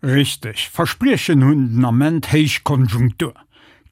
Richteg, Verspriechen hunn den Ament héich Konjunktur.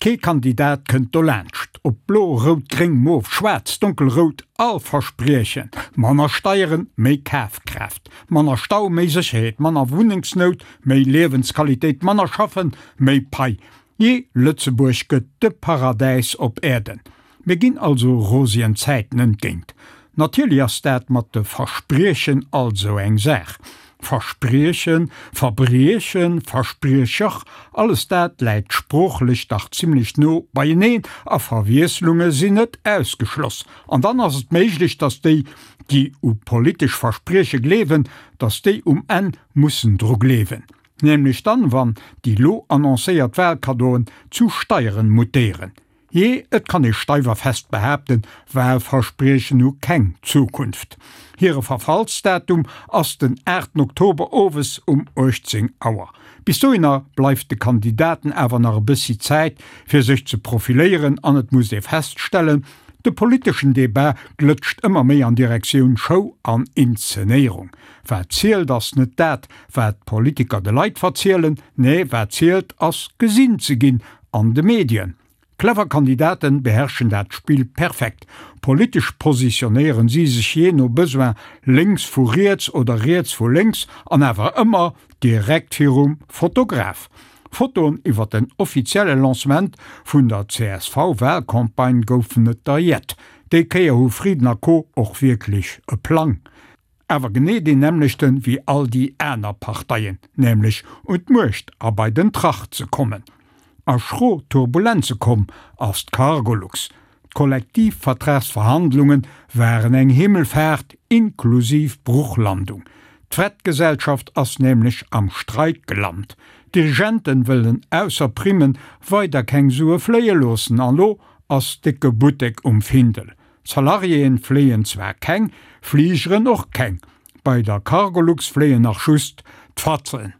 Kee Kandidat kënnt dolaanscht. Ob blo, rout, gréng, mof, schwaarz, donkelrout, all verspriechen manner Steieren, méi Kafkraaft, manner Stau, méi Sécherheet, manner Wunnengsnout, méi Liewensqualitéit, manner schaffen, méi Pai. Jee, Lëtzebuerg gëtt de Paradäis op Äerden. Mir ginn also rosien Zäiten entgéint. Natierlech ass dat mat de Verspriechen alt esou eng Saach. Verspriechen, Verbriechen, Verspriecher, alles dat läit sproochlech dach zimlech no beieneen a Verwiesslunge sinn net ausgeschloss. An dann ass et méiglech, datt déi, déi u politesch Versprieche gleewen, datt déi um Enn mussen dru gleewen. Nämlech dann, wann déi lo annoncéiert Wahlkaddoen zu Steieren mutéieren. Jee, et kann ee steif a fest behaapten, Wahlverspriechen hu keng Zukunft. Hire Verfallsdatum ass den 8 Oktober owes um 18 Auer. Bis dohinner bleift de Kandidaten awer nach e bëssi Zäit, fir sech ze profiléieren an et muss ee feststellen, de politeschen Debat glëtscht ëmmer méi an Direktioun Show an Inzenéierung. Wat zielt ass net dat, wat d'Politiker de Leit verzielen, nee wat zielt ass gesinn ze ginn an de Medien. Clever Kandidaten beherrschen dat Spill perfekt. Politesch positionéieren si sech jee no Besoin lénks vu riets oder riets vu lénks an awer ëmmer direkt virum Fotograf. Fotoen iwwer den offizielle Lancement vun der CSV-Wahlcampagne goufen et der jett. Déi Kéier hu Frieden a Co och wierklech e Plang. Awer genee deen nämmlechten wéi all déi aner Parteien, nämlech un d'Muecht a bei den Trach ze kommen. A schro Turbulenze komm ass d'Cargolux. D'Kollektivvertragsverhandlunge waren eng Himmelfaart inklusiv Bruchlandung. D'Fretgesellschaft ass nämlech am Streik gelant. D'Dirigenten wëllen ausser Primmen weider keng Sue fléie loossen an lo ass décke Buttek um Findel. Salariéen fléien zwar keng, Fligeren och keng. Bei der Cargolux fléien nach just d'Fatzen.